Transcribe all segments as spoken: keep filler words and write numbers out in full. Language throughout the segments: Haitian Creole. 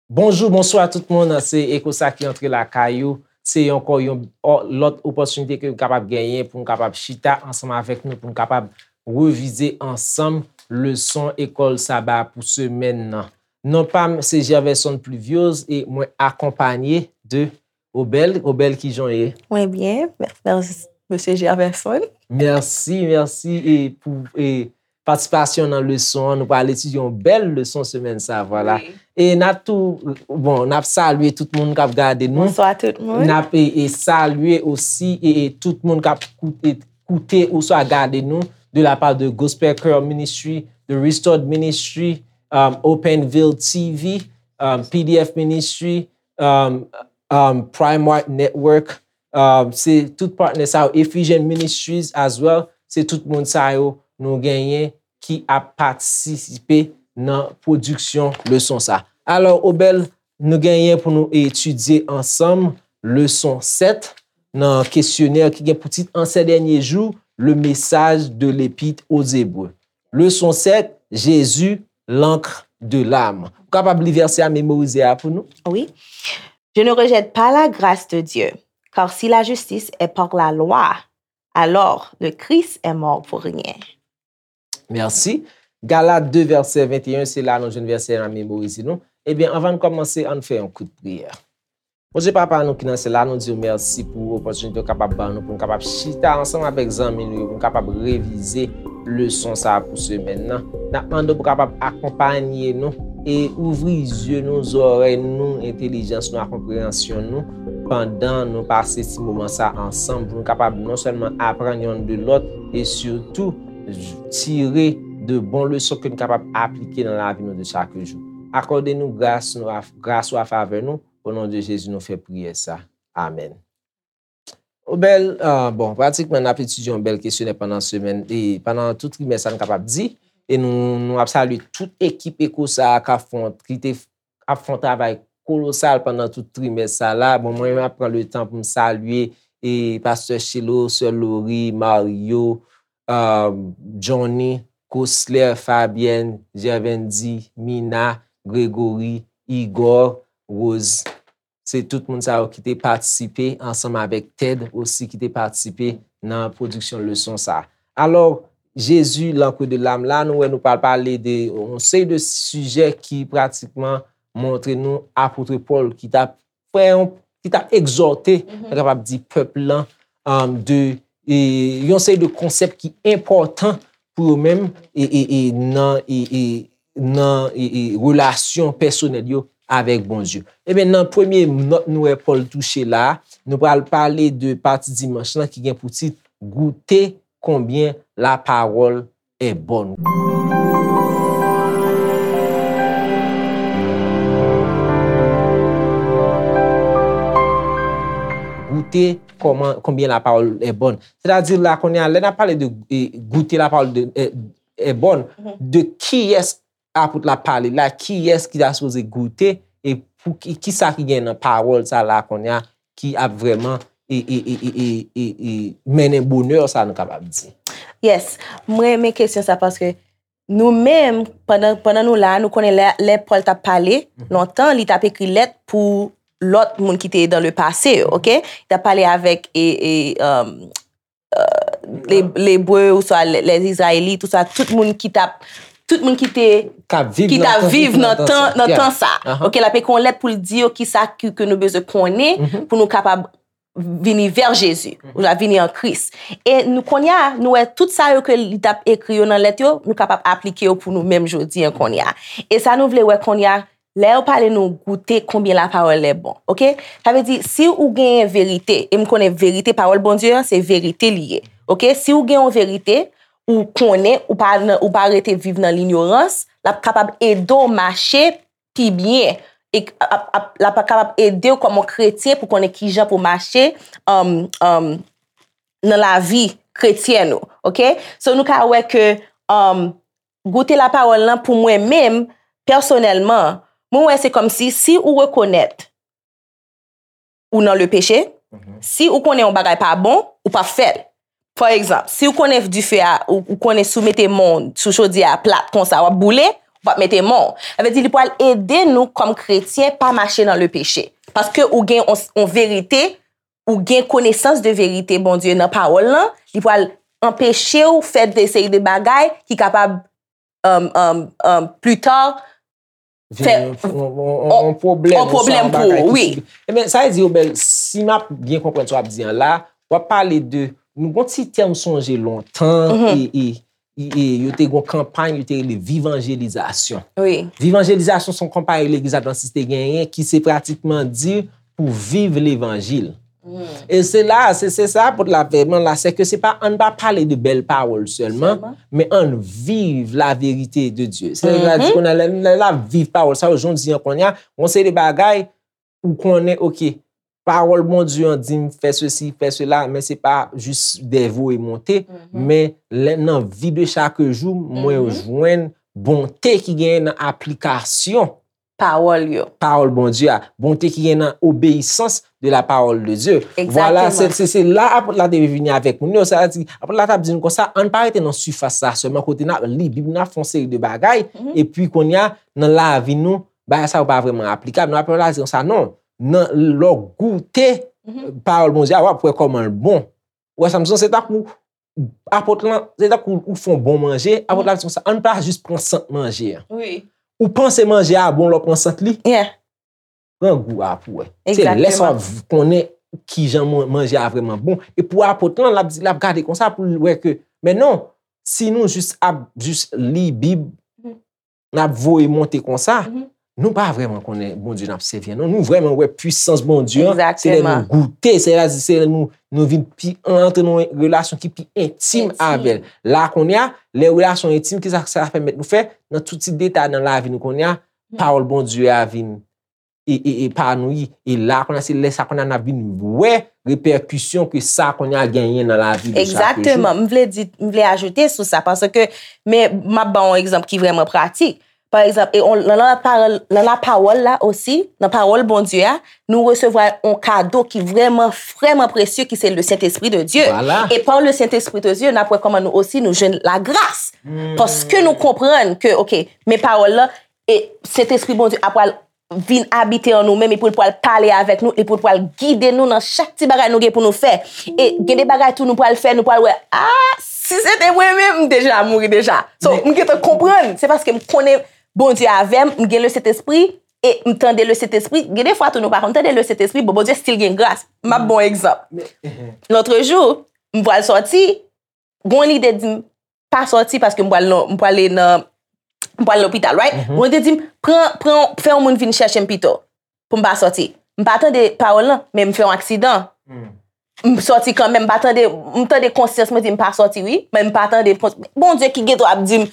Bonjou, bonswa tout moun. Se Echo sa ki antre lakay ou. Se ankò yon o- lòt opòtinite ke nou kapab genyen pou nou kapab chita ansanm avèk nou, pou nou kapab revize ansanm leson ekòl saba pou semèn nan. Non pa m se Gerverson Pluviose e mwen akonpanye de Obel. Obel, kijan w ye? Mwen byen, mèsi, mesye Gerverson. Mèsi, mèsi e pou e patisipasyon nan leson an. Nou pral etidye yon bèl leson semèn sa, vwala. Wi. E n ap tou, bon, n ap salye tout moun k ap gade nou. Bonswa tout moun. N ap e, e salye osi e, e tout moun k ap koute, koute oswa gade nou de la part de Gospel Choir Ministry, de Restored Ministry, um, Openville T V, um, P D F Ministry, um, um, Primark Network, um, se tout patnè sa yo, Ephesian Ministries as well, se tout moun sa yo nou genyen ki ap patisipe nan pwodiksyon leson sa. Alò, Obel, nou genyen pou nou etidye ansanm leson sèt nan kesyonè ki gen pou tit En ces derniers jours, le message de l'Épître aux Hébreux. Leson sèt, Jésus, l'encre de l'âme. Ou kapab li vèsè a, memorize a pou nou? Oui. Je ne rejette pas la grâce de Dieu, car si la justice est par la loi, alors le Christ est mort pour rien. Mèsi. Galat de vèsè venteyen, se la nou jwenn vèsè a, memorize nou. Ebyen, anvan n kòmanse, ann fè yon kout priyè. Bondye Papa nou ki nan syèl la, nou di w mèsi pou opòtinite w kapab ban nou, pou n kapab chita ansanm avèk zanmi nou yo, pou n kapab revize leson sa a pou semèn nan. N ap mande w pou w kapab akonpanye nou e ouvri zye nou, zòrèy nou, entèlijans nou ak konpreyansyon nou pandan nou pase ti moman sa a ansanm, pou nou kapab non sèlman aprann yonn de lòt e sitou tire de bon leson ke nou kapab aplike nan lavi nou de chak jou. Akòde nou gras nou, gras ou a favè nou, o non de Jezi nou fè priyè sa. Amèn. Obel, ah, bon, pratikman n ap etidye yon bèl kesyonè pandan semèn, e pandan tout trimès sa n kapab di, e nou, nou ap salye tout ekip Echo sa a k ap fè yon, ki te ap fè yon travay kolosal pandan tout trimès sa la. Bon, mwen menm ap pran le tan pou m salye e pastè Chelo, sè Lori, Mario, um, Johnny, Cosler, Fabienne, Gervendy, Mina, Gregory, Igor, Rose. Se tout moun sa yo ki te patisipe ansanm avèk Ted osi ki te patisipe nan pwodiksyon leson sa. Alò, Jezi, lankre de lam la, nou wè nou pral pale de yon seri de sijè ki pratikman montre nou apot Pòl ki t ap fè yon, ki t ap egzòte, nou kapab di, pèp lan, um, de e, yon seri de konsèp ki enpòtan pou yo menm e, e, e, nan, e, e, nan e, e, relasyon pèsonèl yo avèk Bondye. Ebyen, nan premye nòt nou wè Pòl touche la, nou pral pale de pati dimanch lan ki gen pou tit Goûtez combien la parole est bonne. Goûtez comment, combien la parole est bonne. Sètadi la kounye a, lè n ap pale de e, goûter la parole de, e, est bonne, de kiyès apot la pale la, kiyès ki ta sipoze goute, e pou ki, kisa ki gen nan pawòl sa la kounye a, ki ap vrèman e, e, e, e, e, e, e mennen bonè sa nou kapab di. Yes, mwen renmen kesyon sa paske nou menm, pandan, pandan nou la, nou konnen lè, lè Pòl t ap pale, lontan, li t ap ekri lèt pou lòt moun ki te dans le passé, ok? Li t ap pale avèk e, e, um, uh, le, Lebre, oswa le, les Israélites, oswa tout moun ki t ap, tout moun ki te, K ap viv ki t nan ap tan, viv nan tan, nan Yeah. tan sa. Aha. Ok, l ap ekri yon lèt pou l di yo kisa ki, ke nou bezwen konnen pou nou kapab vini vè Jezi, ou la vini an Kris. E nou kounye a, nou wè tout sa yo ke li t ap ekri yo nan lèt yo, nou kapab aplike yo pou nou menm jodi an kounye a. E sa nou vle wè kounye a, lè yo pale nou goute konbyen la parole est bon, ok? Sa vle di, si ou genyen verite, e m konnen verite, pawòl Bondye an, se verite li ye, ok? Si ou gen yon verite, ou konnen, ou pa nan, ou pa rete viv nan linyorans, l ap kapab ede w mache pi byen. E ap, ap, l ap kapab ede w kòm yon kretyen pou konnen kijan pou mache um, um, nan lavi kretyèn ou, ok? So nou ka wè ke um, goute la pawòl lan pou mwen menm, pèsonèlman, mwen wè se kòmsi si ou rekonèt ou nan le peche, si ou konnen yon bagay pa bon, ou p ap fè l. Pa egzanp, si ou konnen dife a, ou, ou konnen si w mete men w sou chodyè a plat konsa, w ap boule, Ou p ap mete men w. Sa vle di li pral ede nou kòm kretyen pa mache nan le peche. Paske ou gen yon, yon verite, ou gen konesans de verite Bondye nan pawòl lan, li pral anpeche w fè de seri de bagay ki kapab, um, um, um, pli ta, fè yon, yon, yon, yon, yon pwoblèm, yon pwoblèm pou ou, wi. Ebyen, sa vle di, Obèl, si m ap byen konprann sa w ap di an la, w ap pale de, nou gon ti tèm sonje lontan, e, e, e, e yo te gon kanpay, yo te rele vivanjelizasyon. Wi. Vivanjelizasyon se yon kanpay legliz advantis te genyen ki se pratikman di pou viv levanjil. E se la, se, se sa apot la vrèman la, se ke se pa, ann pa pale de bèl pawòl sèlman, men ann viv la verite de Dye. Se la di kounye a, lè, lè l ap viv pawòl sa yo, jan w di an kounye a, yon seri de bagay, ou konnen, oke, pawòl Bondye an di m fè sesi, fè sela, men se pa jis de voye monte, men lè nan vi de chak jou, mwen jwenn bonte ki genyen nan aplikasyon pawòl yo. Pawòl Bondye a, bonte ki gen nan obeyisans de la parole de Dieu. Vwala, se, se, se la apot la te vini avèk moun yo. Sa vle di, apot la t ap di nou konsa, ann pa rete nan sifas la sèlman, kote n ap li Bib, n ap fè yon seri de bagay, epi kounye a, nan lavi nou, bagay sa yo pa vrèman aplikab. Nan apot la di konsa, non. Nan, lè w goute pawòl Bondye a, w ap wè kòman l bon. Ou wè sa m di w, se tankou apot lan, se tankou ou fè yon bon manje, apot la di konsa, ann pa jis pran sant manje a. Wi. Ou panse manje a bon lè w pran sant li? Yeah. Pran gou a pou wè. Se lè sa w ap konnen kijan man-, manje a vrèman bon. E pou apot lan, l ap di, l ap gade konsa pou l wè ke, men non, si nou jis ap jis li Bib, n ap voye monte konsa, nou pa vrèman konnen Bondye n ap sèvi an, non. Nou vrèman wè pwisans Bondye an, se lè nou goute, se lè, se lè nou, nou vin pi, antre nan yon relasyon ki pi entim avè l. La kounye a, lè relasyon entim, kisa sa pèmèt nou fè? Nan tout ti detay nan lavi nou kounye a, pawòl Bondye a vin e, e, epanouyi. E la kounye a, se lè sa kounye a n ap vin wè repèkisyon ke sa kounye a genyen nan lavi de chak jou. Egzakteman. M vle di, m vle ajoute sou sa, paske, men m ap ba w yon egzanp ki vrèman pratik. Pa egzanp, e on, nan, nan lapawòl, nan lapawòl la osi, nan pawòl Bondye a, nou resevwa yon kado ki vrèman, vrèman presye, ki se le Sentespri de Dye. Vwala. E pa le Sentespri de Dye, n ap wè kòman nou osi nou jwenn lagras. Paske nou konprann ke, oke, men pawòl la, e Sentespri Bondye a pral vin abite an nou menm, epi l pral pale avèk nou, epi l pral gide nou nan chak ti bagay nou gen pou nou fè. E gen de bagay tou nou pral fè, nou pral wè, ah, si se te mwen menm, m deja mouri deja. So, m gentan konprann, se paske m konnen Bondye avè m, m gen le Sentespri, e m tande le Sentespri. Gen de fwa tou nou pa konn tande le Sentespri, bon, Bondye still gen gras. M ap ba w egzanp. Lòt jou, m pral sòti, gon lide di m, pa sòti paske m pral nan, m prale nan, m pral lopital, right? Gon lide di m, pran, pran, fè yon moun vin chèche m pito, pou m pa sòti. M pa tande pawòl lan, men m fè yon aksidan. M sòti kanmenm, m pa tande, m tande konsyans mwen di m pa sòti, wi, men m pa tande kons-, Bondye ki gen dwa ap di m,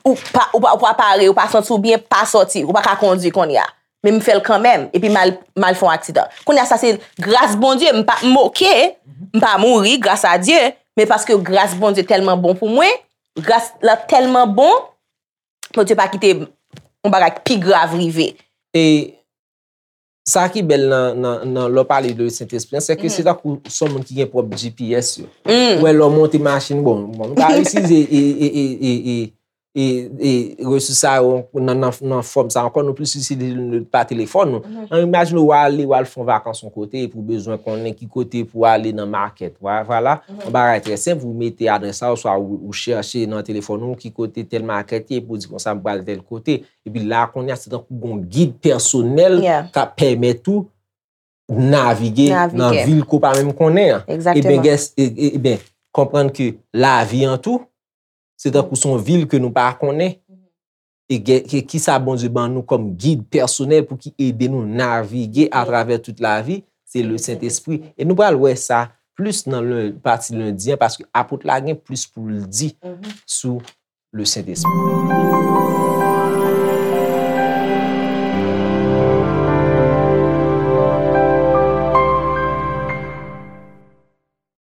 ou pa, ou pa, ou pa pare, ou pa santi w byen, pa sòti, ou pa ka kondwi kounye a. Men m fè l kanmenm, epi m al, m al fè yon aksidan. Kounye a sa se gras Bondye, m pa, m oke, m pa mouri, gras a Dye, men paske gras Bondye tèlman bon pou mwen, gras la tèlman bon, Bondye pa kite yon bagay pi grav rive. E sa ki bèl nan, nan, nan lè w pale de Sentespri an, se ke se tankou se yon moun ki gen pwòp G P S yo. Ou wè lè w monte machin, bon, bon, nou ka itilize e, e, e, e, e, e, e resous sa yo nan, nan, nan fòm sa ankò, nou plis itilize nou pa telefòn nou. An, imajine w ale, w al fè yon vakans yon kote, epi w bezwen konnen ki kote pou w ale nan makèt. Vwa-, vwala, yon bagay trè senp, ou mete adrès la, oswa ou, ou chèche nan telefòn ou ki kote tèl makèt ye, epi w di konsa, m pral tèl kote. Epi la, kounye a, se tankou gon gid pèsonèl k ap pèmèt ou navige nan vil ke w pa menm konnen an. Ebyen, gès, e, e, ebyen, konprann ke lavi an tou, se tankou se yon vil ke nou pa konnen. E gen, ke, kisa Bondye ban nou kòm gid pèsonèl pou ki ede nou navige atravè tout lavi, se le Sentespri. E nou pral wè sa plis nan len-, pati lendi an, paske apot la gen plis pou l di sou le Sentespri.